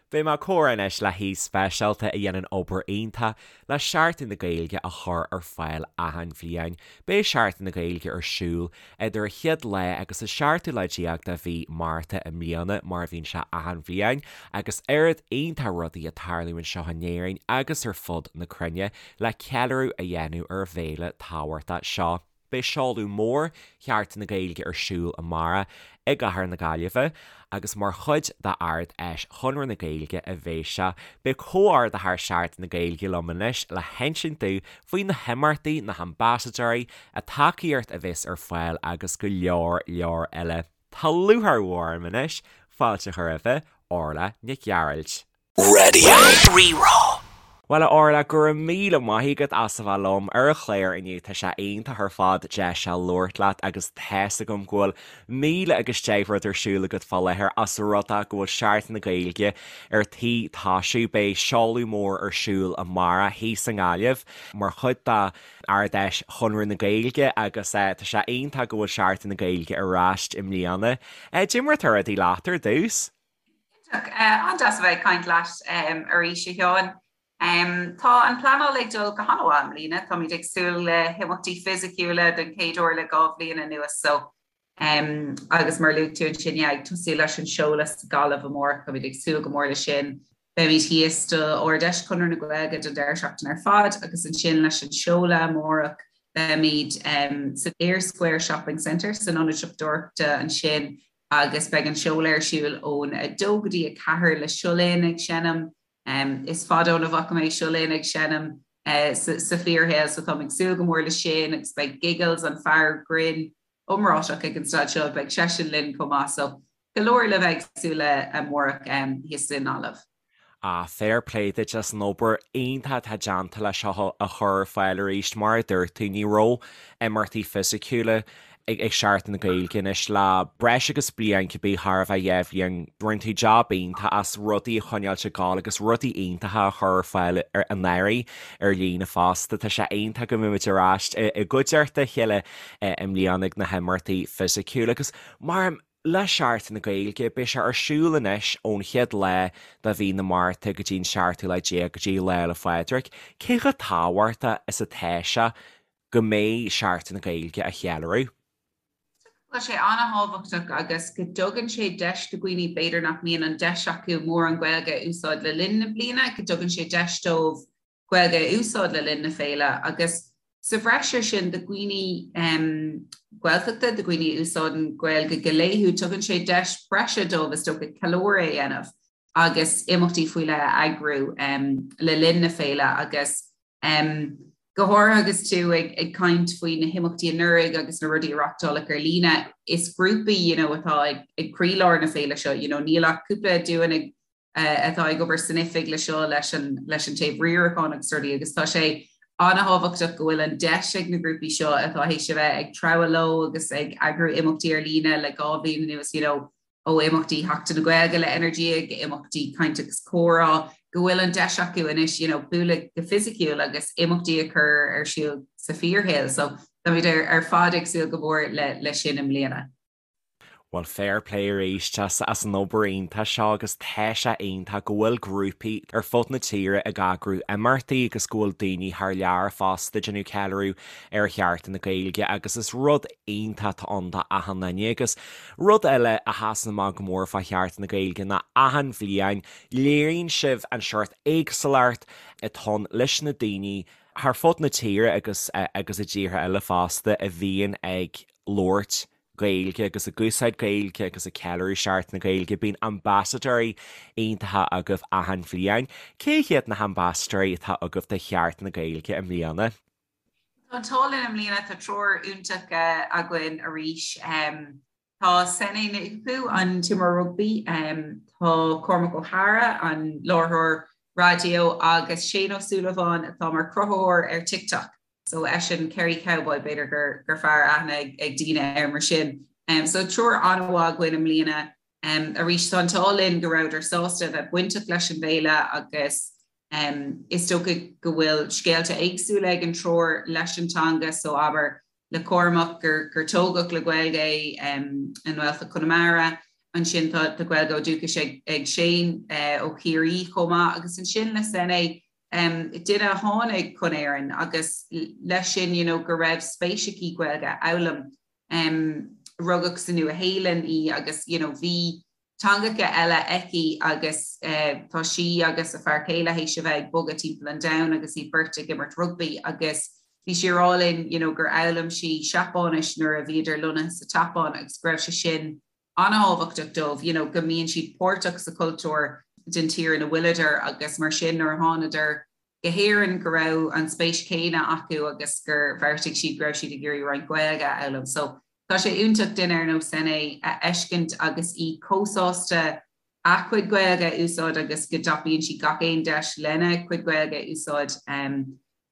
Beidh mé ag comhrá anois le haoi speisialta a dhéanann obair iontach le Seachtain na Gaeilge a chur ar fáil achan bhliain. Beidh Seachtain na Gaeilge ar siúl idir an chéad lá agus an seachtú lá déag de mhí Márta i mbliana, mar a bhíonn sé achan bhliain, agus oiread iontach rudaí ag tarlú anseo in Éirinn agus ar fud na cruinne le ceiliúradh a dhéanamh ar an bhféile tábhachtach seo. Beidh seoladh mór Sheachtain na Gaeilge ar siúl amárach i gcathair na Gaillimhe agus mar chuid d'Ard-Fheis Chonradh na Gaeilge a bheidh sé. Beidh comhordaitheoir Sheachtain na Gaeilge liom anois le hinsint domh faoi na himeachtaí, na hambasadóirí, an tacaíocht a bheas ar fáil agus go leor leor eile. Tá lúcháir mhór orm anois fáilte a chur roimhe, Orla Nic Ghearailt. Raidió Rí-Rá. Bhuel a Orla, go raibh míle maith agat as a bheith liom ar an chlár inniu, tá sé iontach ar fad deis a labhairt leat agus tá's agam go bhfuil 1000 agus 10 rud ar siúl agat fá láthair ós rud é go bhfuil Seachtain na Gaeilge ar tí tosú. Beidh seoladh mór ar siúl amárach thíos i nGaillimh mar chuid de Ard-Fheis Chonradh na Gaeilge agus tá sé iontach go bhfuil Seachtain na Gaeilge ar ais i mbliana. Cad é mar atá rudaí leat ar dtús? Iontach. An-deas a bheith ag caint leat arís, a Sheáin. Tá an pleanáil ag dul go han-mhaith i mbliana. Táimid ag súil le himeachtaí fisiciúla don chéad uair le 2 bhliain anuas so agus mar a luaigh tú ansin, yeah, ag tosú leis an seoladh sa Ghaillimh amárach, táimid ag súil go mór leis sin. Beimid thíos do Ard-Fheis Chonradh na Gaeilge don deireadh seachtaine ar fad agus ansin leis an seoladh amárach beimid san Eyre Square Shopping Centre san ionad siopadóireachta ansin agus beidh an seoladh ar siúl ón 2 go dtí 4 le Seo Linn ag seinm. Is fada óna bhfaca mé Seo Linn ag seinm sa fíorshaol so táim ag súil go mór leis sin agus beidh Giggles, an fear grinn iomráiteach ag an staid seo, beidh seisean linn chomh maith so go leor le bheith ag súil le amárach thíos i nGaillimh. Ah, fair play duit as an obair iontach atá déanta le seo a chur ar fáil arís. Mar a dúirt tú, ní raibh imeachtaí fisiciúla ag Seachtain na Gaeilge anois le breis agus bliain, cibé chóir a bheith 2 bhliain. Rinne tú jab iontach as rudaí a choinneáilt ag gabháil agus rudaí iontacha a chur ar fáil anuraidh ar líne fosta. Tá sé iontach go mbeimid ar ais i gcuideachta a chéile i mbliana ag na himeachtaí fisiciúla agus mar Le Seachtain na Gaeilge, beidh sé ar siúl anois ón chéad lá de mhí na Márta go dtí an seachtú lá déag go dtí Lá 'le Phádraig. Cé chomh tábhachtach is atá sé go mbeidh Seachtain na Gaeilge á cheiliúradh? Tá sé an-thábhachtach agus go dtugann sé deis do dhaoine b'fhéidir nach mbíonn an deis acu mórán Gaeilge a úsáid le linn na bliana, go dtugann sé deis dóibh Gaeilge a úsáid le linn na féile agus sa bhreis ar sin do dhaoine Gaeltachta, do dhaoine a úsáideann Gaeilge go laethúil, tugann sé deis breise dóibh is dócha ceiliúradh a dhéanamh agus imeachtaí faoi leith a eagrú le linn na féile agus go háirithe agus tú ag caint faoi na himeachtaí anuraidh agus na rudaí a reachtáladh ar líne, is grúpaí you know atá ag croílár na féile seo, you know níl ach cúpla dúinn ag atá ag obair san oifig le seo leis an leis an taobh riaracháin agus rudaí agus tá sé an-thábhachtach go bhfuil an deis ag na grúpaí seo atá théis a bheith ag treabhadh leo agus ag eagrú imeachtaí ar líne le 2 bhliain anuas you know ó imeachtaí Sheachtain na Gaeilge le Energia go imeachtaí caint agus comhrá go bhfuil an deis acu anois you know bualadh go fisiciúil agus imeachtaí a chur ar siúl sa fíorshaol so táimid ar ar fad ag súil go mór le le sin i mbliana. Bhuel, fair play arís as an obair iontach seo agus tá sé iontach go bhfuil grúpaí ar fud na tíre ag eagrú imeachtaí agus go bhfuil daoine thar lear fosta ag déanamh ceiliúradh ar Sheachtain na Gaeilge agus is rud iontach atá ann do achan duine agus rud eile a sheasann amach go mór fá Sheachtain na Gaeilge ná achan bhliain léiríonn sibh an seort éagsúlacht atá ann leis na daoine thar fud na tíre agus agus i dtíortha eile fosta a bhíonn ag labhairt Gaeilge agus ag úsáid Gaeilge agus ag ceiliúradh Seachtain na Gaeilge. Bíonn ambasadóirí iontacha agaibh achan bhliain. Cé hiad na hambasadóirí atá agaibh do Sheachtain na Gaeilge i mbliana? Tá an t-ádh linn i mbliana, tá triúr iontach againn arís. Tá Sene Naoupu, an t-imreoir rugbaí, tá Cormac Ó hEadhra, an láithreoir raidió agus Shane Ó Súilleabháin atá mar chruthaitheoir ar TikTok. So eisean Kerry Cowboy, b'fhéidir gur gur fearr aithne ag daoine air mar sin. So triúr an-mhaith againn i mbliana. Arís tá an t-ádh linn go rabhadar sásta a bheith bainteach leis an bhféile agus is dócha go bhfuil scéalta éagsúla ag an triúr leis an teanga so abair le Cormac gur gur tógadh le Gaeilge é i nGaeltacht Chonamara. Ansin tá Gaeilge ó dúchas ag Shane ó Chiarraí chomh maith agus ansin le Sene, duine a tháinig chun Éireann agus leis sin you know go raibh spéis aici Gaeilge a fhoghlaim. Rugadh sa Nua-Shéalainn í agus you know bhí teangacha eile aici agus tá sí agus a fear céile théis a bheith ag bogadh timpeall an domhain agus iad beirt ag imirt rugbaí agus bhí sí ag rá linn you know gur fhoghlaim sí Seapáinis nuair a bhíodar lonnaithe sa tSeapáin agus go raibh sé sin an-thábhachtach dóibh you know go mbíonn siad páirteach sa chultúr den tír ina bhfuileadar agus mar sin nuair a thánadar go hÉirinn go raibh an spéis chéanna acu agus gur bheartaigh siad go raibh siad ag iarraidh roinnt Gaeilge a fhoghlaim. So tá sé iontach duine ar nós Sene a fheiscint agus í chomh sásta a cuid Gaeilge a úsáid agus go dtapaíonn sí gach aon deis lena cuid Gaeilge a úsáid.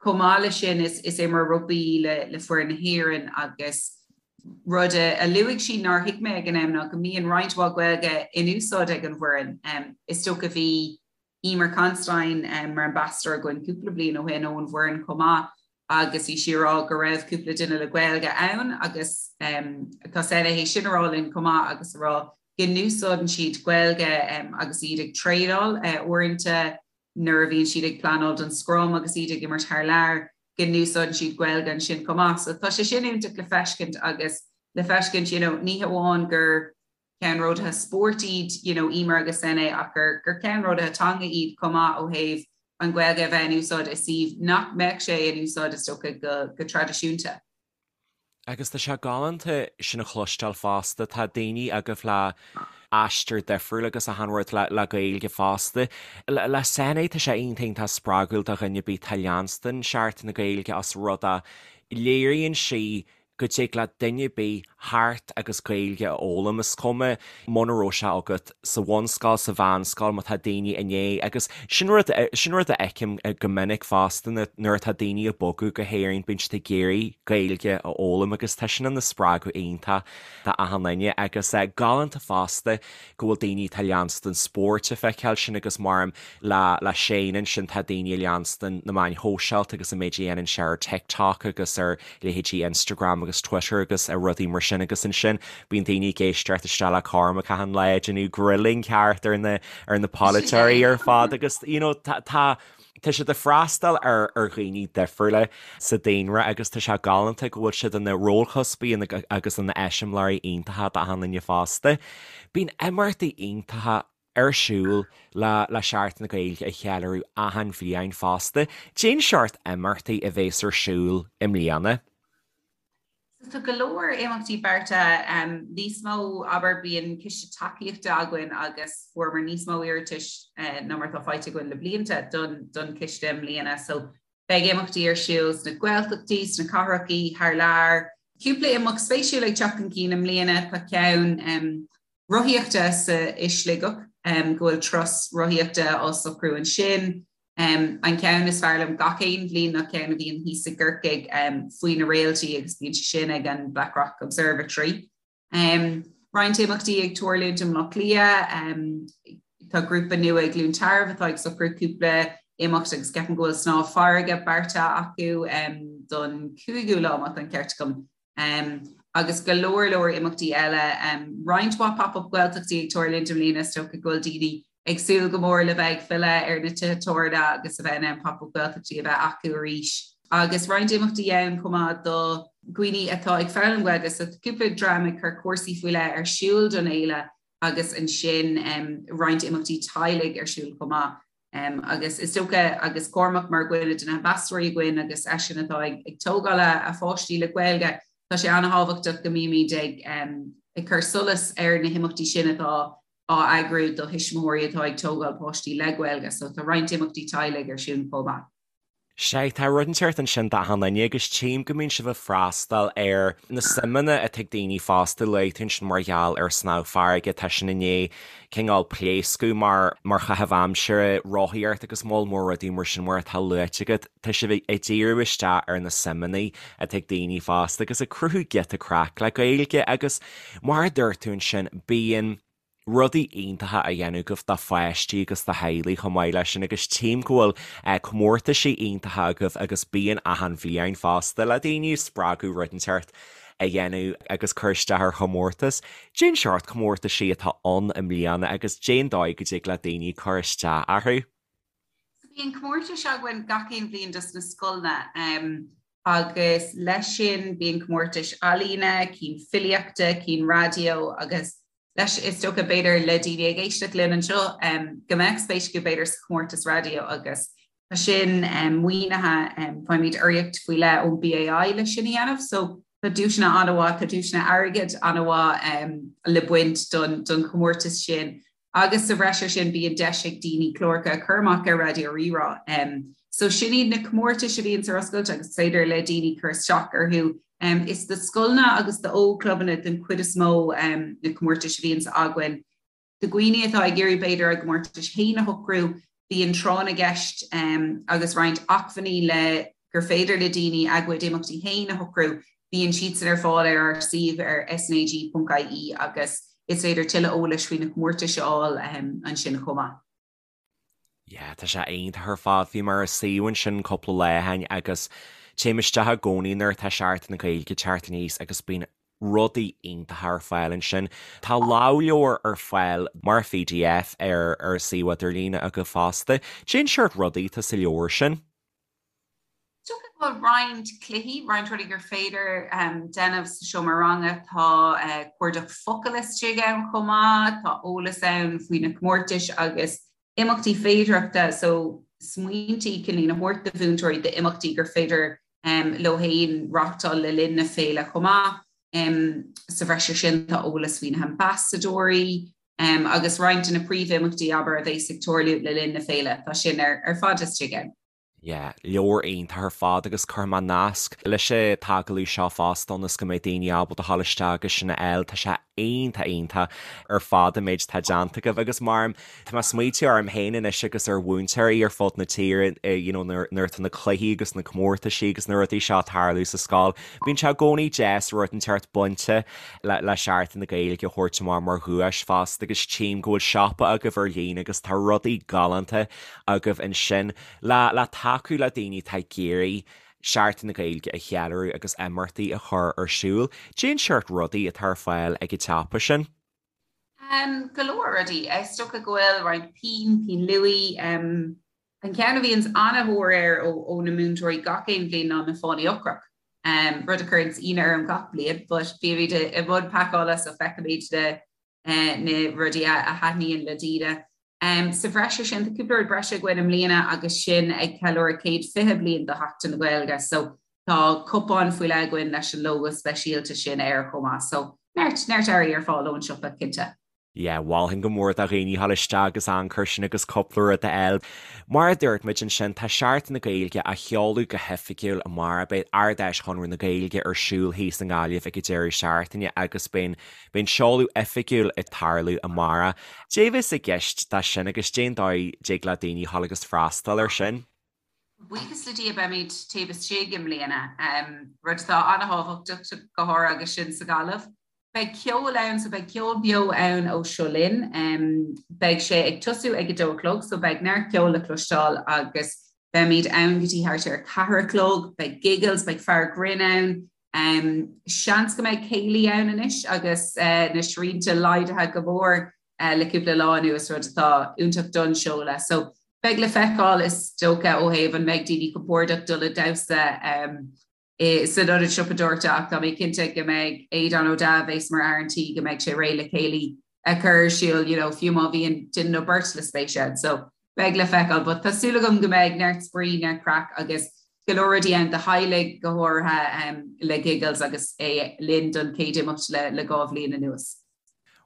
Chomh maith leis sin is is imreoir rugbaí í le le foireann na hÉireann agus rud a luaigh sí nár thuig mé ag an am ná go mbíonn roinnt mhaith Gaeilge in úsáid ag an bhfoireann. Is dócha bhí Eimear Considine mar ambasadóir againn cúpla bliain ó shin ón bhfoireann chomh maith agus bhí sí ag rá go raibh cúpla duine le Gaeilge ann agus tá Sene théis sin a rá linn chomh maith agus a rá go n-úsáideann siad Gaeilge agus iad ag traenáil uaireanta nuair a bhíonn siad ag pleanáil don scrum agus iad ag imirt thar lear go n-úsáideann siad Gaeilge ansin chomh maith. So tá sé sin iontach le feiscint agus le feiscint you know ní hamháin gur ceannródaithe spóirt iad you know Eimear agus Sene ach gur gur ceannródaithe teanga iad chomh maith ó thaobh an Ghaeilge a bheith in úsáid i suíomh nach mbeadh sé in úsáid is dócha go go traidisiúnta. Agus tá sé galánta sin a chloisteáil fosta, tá daoine agaibh le aistear difriúil agus achan rud le le Gaeilge fosta. Le le Sene tá sé iontach iontach spreagúil do dhuine ar bith atá ag leanstan Seachtain na Gaeilge os rud é léiríonn sí go dtig le duine ar bith theacht agus Gaeilge a fhoghlaim, is cuma muna raibh sé agat sa bhunscoil, sa mheánscoil, má tá daoine i ndiaidh, agus sin rud, sin rud a fheicim go minic fosta nuair atá daoine ag bogadh go hÉirinn, bíonn siad ag iarraidh Gaeilge a fhoghlaim agus tá sin ina spreagadh iontach do achan duine agus galánta fosta go bhfuil daoine atá ag leanstan spóirt ag feiceáil sin agus mar le le Shane ansin tá daoine ag leanstan na meáin shóisialta agus an méid a dhéanann sé ar TikTok agus ar leithéidí Instagram agus Twitter agus rudaí mar sin agus ansin bíonn daoine ag éisteacht isteach le Cormac achan lá ag déanamh grilling ceart ar na ar na polaiteoirí ar fad agus you know tá tá tá siad ag freastal ar ar dhaoine difriúla sa daonra agus tá sé galánta go bhfuil siad ina rólchuspaí agus ina eiseamláirí iontacha d'achan duine fosta. Bíonn imeachtaí iontacha ar siúl le le Seachtain na Gaeilge a cheiliúradh achan bhliain fosta. Cén seort imeachtaí a bhéas ar siúl i mbliana? So tá go leor imeachtaí beartaithe, níos mó, abair, bíonn ciste tacaíochta againn agus fuaireamar níos mó iarratais ná mar atá faighte againn le blianta don don chiste i mbliana. So beidh imeachtaí ar siúl sna Gaeltachtaí, sna cathrachaí, thar lear. Cúpla imeacht spéisiúil ag teacht chun cinn i mbliana, tá ceann rothaíochta sa i Sligeach, go bhfuil turas rothaíochta á socrú ansin. An ceann is fearr liom gach aon bhliain ná ceann a bhíonn thíos i gCorcaigh faoi na réaltaí agus bíonn sé sin ag an Blackrock Observatory. Roinnt imeachtaí ag tarlúint i mBleá Cliath. Tá grúpa nua i gCluain Tarbh atá ag socrú cúpla imeacht agus ceapaim go bhfuil snámh farraige beartaithe acu don 5ú lá má tá an ceart agam. Agus go leor leor imeachtaí eile. Roinnt mhaith pop-up Gaeltachtaí ag tarlúint i mbliana, is dócha go bhfuil daoine ag súil go mór le bheith ag filleadh ar na tithe tábhairne agus a bheith in ann pop-up Gaeltachtaí a bheith acu arís. Agus roinnt imeachtaí ann chomh maith do dhaoine atá ag foghlaim Gaeilge, so tá cúpla dream ag cur cúrsaí faoi leith ar siúl don fhéile agus ansin roinnt imeachtaí teaghlaigh ar siúl chomh maith. Agus is dócha, agus Cormac mar dhuine de na hambasadóirí againn agus eisean atá ag tógáil a pháistí le Gaeilge, tá sé an-thábhachtach go mbímid ag ag cur solas ar na himeachtaí sin atá á eagrú do thuismitheoirí atá ag tógáil páistí le Gaeilge. So tá roinnt imeachtaí teaghlaigh ar siúl chomh maith. Sea, tá rud inteacht ansin d'achan duine agus tchím go mbíonn sibh ag freastal ar na suimeanna atá ag daoine fosta. Luaigh tú ansin mar gheall ar snámh farraige, tá sin i ndiaidh cineál pléascadh mar mar chaitheamh aimsire, rothaíocht agus moll mór rudaí mar sin mar atá luaite agat. Tá sibh ag díriú isteach ar na suimeanna atá ag daoine fosta agus ag cruthú giota craic le Gaeilge agus mar a dúirt tú ansin, bíonn rudaí iontacha á dhéanamh agaibh do pháistí agus do theaghlaigh chomh maith leis sin agus tchím go bhfuil comórtaisí iontacha agaibh agus bíonn achan bhliain fosta le daoine a spreagadh rud inteacht. a dhéanamh agus cur isteach ar chomórtas. Cén seort comórtaisí atá ann i mbliana agus cén dóigh go dtig le daoine cur isteach orthu? So bíonn comórtais againn gach aon bhliain dos na scoileanna agus leis sin bíonn comórtais ealaíne, cinn filíochta, cinn raidió agus leis is dócha b'fhéidir le daoine ag éisteacht linn anseo go mbeadh spéis acu b'fhéidir sa chomórtas raidió agus tá sin maoinithe, faighimid urraíocht faoi leith ón BAI leis sin a dhéanamh so tá duaiseanna an-mhaith, tá duaiseanna airgid an-mhaith le baint don chomórtas sin Agus sa bhreis air sin bíonn deis ag daoine cláracha a chur amach ar Raidió Rí-Rá. So sin iad na comórtais a bhíonns ar oscailt agus is féidir le daoine cur isteach orthu. Is do scoileanna agus do ógchlubanna den chuid is mó na comórtais a bhíonns againn. Do dhaoine atá ag iarraidh b'fhéidir a gcomórtais féin a shocrú, Bíonn tráth na gceist agus roinnt acmhainní le gur féidir le daoine a gcuid imeachtaí féin a shocrú. Bíonn siadsan ar fáil ar ár suíomh ar snag.ie agus is féidir tuilleadh eolais faoi na comórtais a fháil ansin chomh maith. Yeah, tá sé iontach ar fad. Bhí mé ar an suíomh ansin cúpla lá ó shin agus téim isteach i gcónaí nuair atá Seachtain na Gaeilge ag teacht aníos agus bíonn rudaí iontacha ar fáil ansin. Tá lámhleabhar ar fáil mar pdf ar ar an suíomh idirlíne agaibh fosta. Cén seort rudaí atá sa leabhar sin? Is dócha go bhfuil roinnt cluichí, roinnt rudaí gur féidir déanamh sa seomra ranga. Tá cuardach focal istigh ann chomh maith, tá eolas ann faoi na comórtais agus imeachtaí féidearthachta, so smaointí cineál a thabhairt do mhúinteoirí d'imeachtaí gur féidir leo féin reáchtáil le linn na féile chomh maith. Sa bhreis air sin tá eolas faoi na hambasadóirí agus roinnt de na príomhimeachtaí, abair, a bheas ag tarlú le linn na féile, tá sin ar fad istigh ann. Yeah, leabhar iontach ar fad agus cuirfidh mé nasc leis an t-agallamh seo fosta ionas go mbeidh daoine ábalta dhul isteach agus sin a fháil. Tá sé iontach iontach ar fad an méid atá déanta agaibh agus mar tá mé ag smaoitiú orm féin anois agus ar mhúinteoirí ar fud na tíre you know nuair nuair atá na cluichí agus na comórtaisí agus na rudaí seo ag tarlú sa scoil bíonn sé i gcónaí deas rud inteacht bainte le le Seachtain na Gaeilge a thabhairt amach mar dhuais fosta agus tchím go bhfuil siopa agaibh ar líne agus tá rudaí galánta agaibh ansin. Le le tacú le daoine atá ag iarraidh Seachtain na Gaeilge a cheiliúradh agus imeachtaí a chur ar siúl, cén seort rudaí atá ar fáil ag an tsiopa sin? Go leor rudaí. Is dócha go bhfuil roinnt pinn, pinn luaidhe. An ceann a bhíonns an-thóir air ó na múinteoirí gach aon bhliain ná na fánaí ocrach. Rud a chuireanns ionadh orm gach bliain but bímid i mbun pacála so feicimid na na rudaí a thaitníonn le daoine. Sa bhreis air sin, tá cúpla rud breise againn i mbliana agus sinn ag ceiliúradh céad 20 bliain de Sheachtain na Gaeilge so tá cupán faoi leith againn leis an lógó speisialta sin air chomh maith. So neart, neart earraí ar fáil ón siopa, cinnte. Yeah, mholfainn go mór do dhaoine dhul isteach agus amharc air sin agus cúpla rud a fháil. Mar a dúirt muid ansin, tá Seachtain na Gaeilge á sheoladh go hoifigiúil amárach. Beidh Ard-Fheis Chonradh na Gaeilge ar siúl thíos i nGaillimh ag an deireadh seachtaine agus beidh Beidh an seoladh oifigiúil ag tarlú amárach. Cad é a bheas i gceist de sin agus cén dóigh dtig le daoine dhul agus freastal air sin? Buíochas le Dia beimid taobh istigh i mbliana, rud atá an-thábhachtach go háirithe agus sinn sa Ghaillimh. Beidh ceol ann so beidh ceol beo ann ó Seo Linn. Beidh sé ag tosú ag a dó a chlog so beidh neart ceoil le cloisteáil agus beimid ann go dtí thart ar a ceathair a chlog. Beidh Giggles, beidh fear grinn ann, Seans go mbeidh céilí ann anois agus na srianta laghdaithe go mór le cúpla lá anuas, rud atá iontach don seoladh. So beidh le feiceáil is dócha ó thaobh an mbeidh daoine compordach dul ag damhsa san ionad siopadóireachta ach tá mé cinnte go mbeidh Aodán Ó Deá a bheas mar fhear an tí go mbeidh sé réidh le céilí a chur ar siúl you know fiú má bhíonn duine nó beirt le spéis ann. So beidh le feiceáil but tá súil agam go mbeidh neart spraoi, neart craic agus go leor rudaí ann do theaghlaigh go háirithe le Giggles agus é linn don chéad imeacht le le 2 bhliain anuas.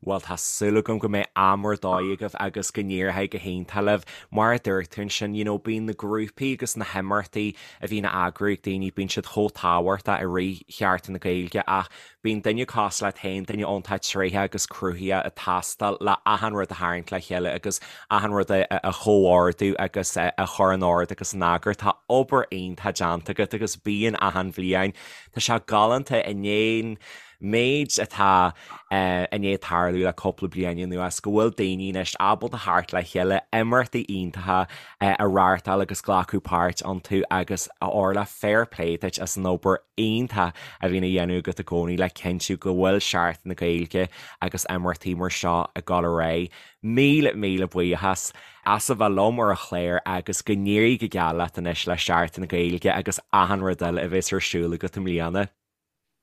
Bhuel tá súil agam go mbeidh am ar dóigh agaibh agus go n-éireoidh go hiontach libh. Mar a dúirt tú ansin, you know bíonn na grúpaí agus na himeachtaí a bhíonn á eagrú ag daoine, bíonn siad chomh tábhachtach i rith Sheachtain na Gaeilge ach Bíonn duine cosúil leat féin, duine iontach tréitheach agus cruthaitheach ag teastáil le achan rud a tharraingt le chéile agus achan rud a chomhordú agus a chur in ord agus in eagar. Tá obair iontach déanta agat agus bíonn achan bhliain. Tá sé galánta i ndiaidh. méid atá i ndiaidh tarlú le cúpla bliain anuas, go bhfuil daoine anois ábalta theacht le chéile, imeachtaí iontacha a reáchtáil agus glacadh páirt iontu agus a Orla, fair play duit as an obair iontach a bhíonn á dhéanamh agat i gcónaí le cinntiú go bhfuil Seachtain na Gaeilge agus imeachtaí mar seo ag dul ar aghaidh. Míle, míle buíochas as a bheith liom ar an chlár agus go n-éirí go geal leat anois le Seachtain na Gaeilge agus achan rud eile a bheas ar siúl agat i mbliana.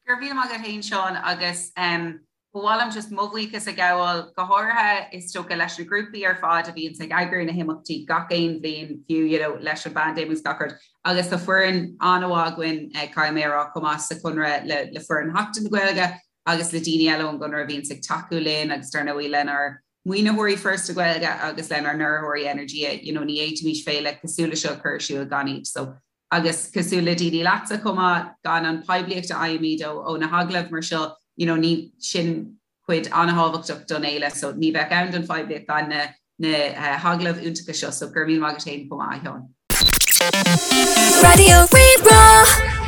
Go raibh míle maith agat féin Seán agus ba mhaith liom just mo bhuíochas a ghabháil go háirithe is dócha leis na grúpaí ar fad a bhíonns ag eagrú na himeachtaí gach aon bhliain fiú you know leis an bpaindéim agus gach rud agus tá foireann an-mhaith againn caithfidh mé a rá chomh maith sa Chonradh le le foireann Sheachtain na Gaeilge agus le daoine eile ón gConradh a bhíonns ag tacú linn agus dar ndóigh lenár maoinitheoirí Foras na Gaeilge agus lenár n-urraitheoirí Energia you know ní fhéadfaimis féile cosúil le seo a chur ar siúl gan iad so Agus cosúil le daoine leatsa chomh maith, gan an poiblíocht a fhaighimid ó na hagallaimh mar seo, you know, ní, sin cuid an-thábhachtach don fhéile, so ní bheadh ann don phoiblíocht gan na na hagallaimh iontacha seo, so go raibh míle maith agat féin chomh maith, a Sheáin. Raidió Rí-Rá.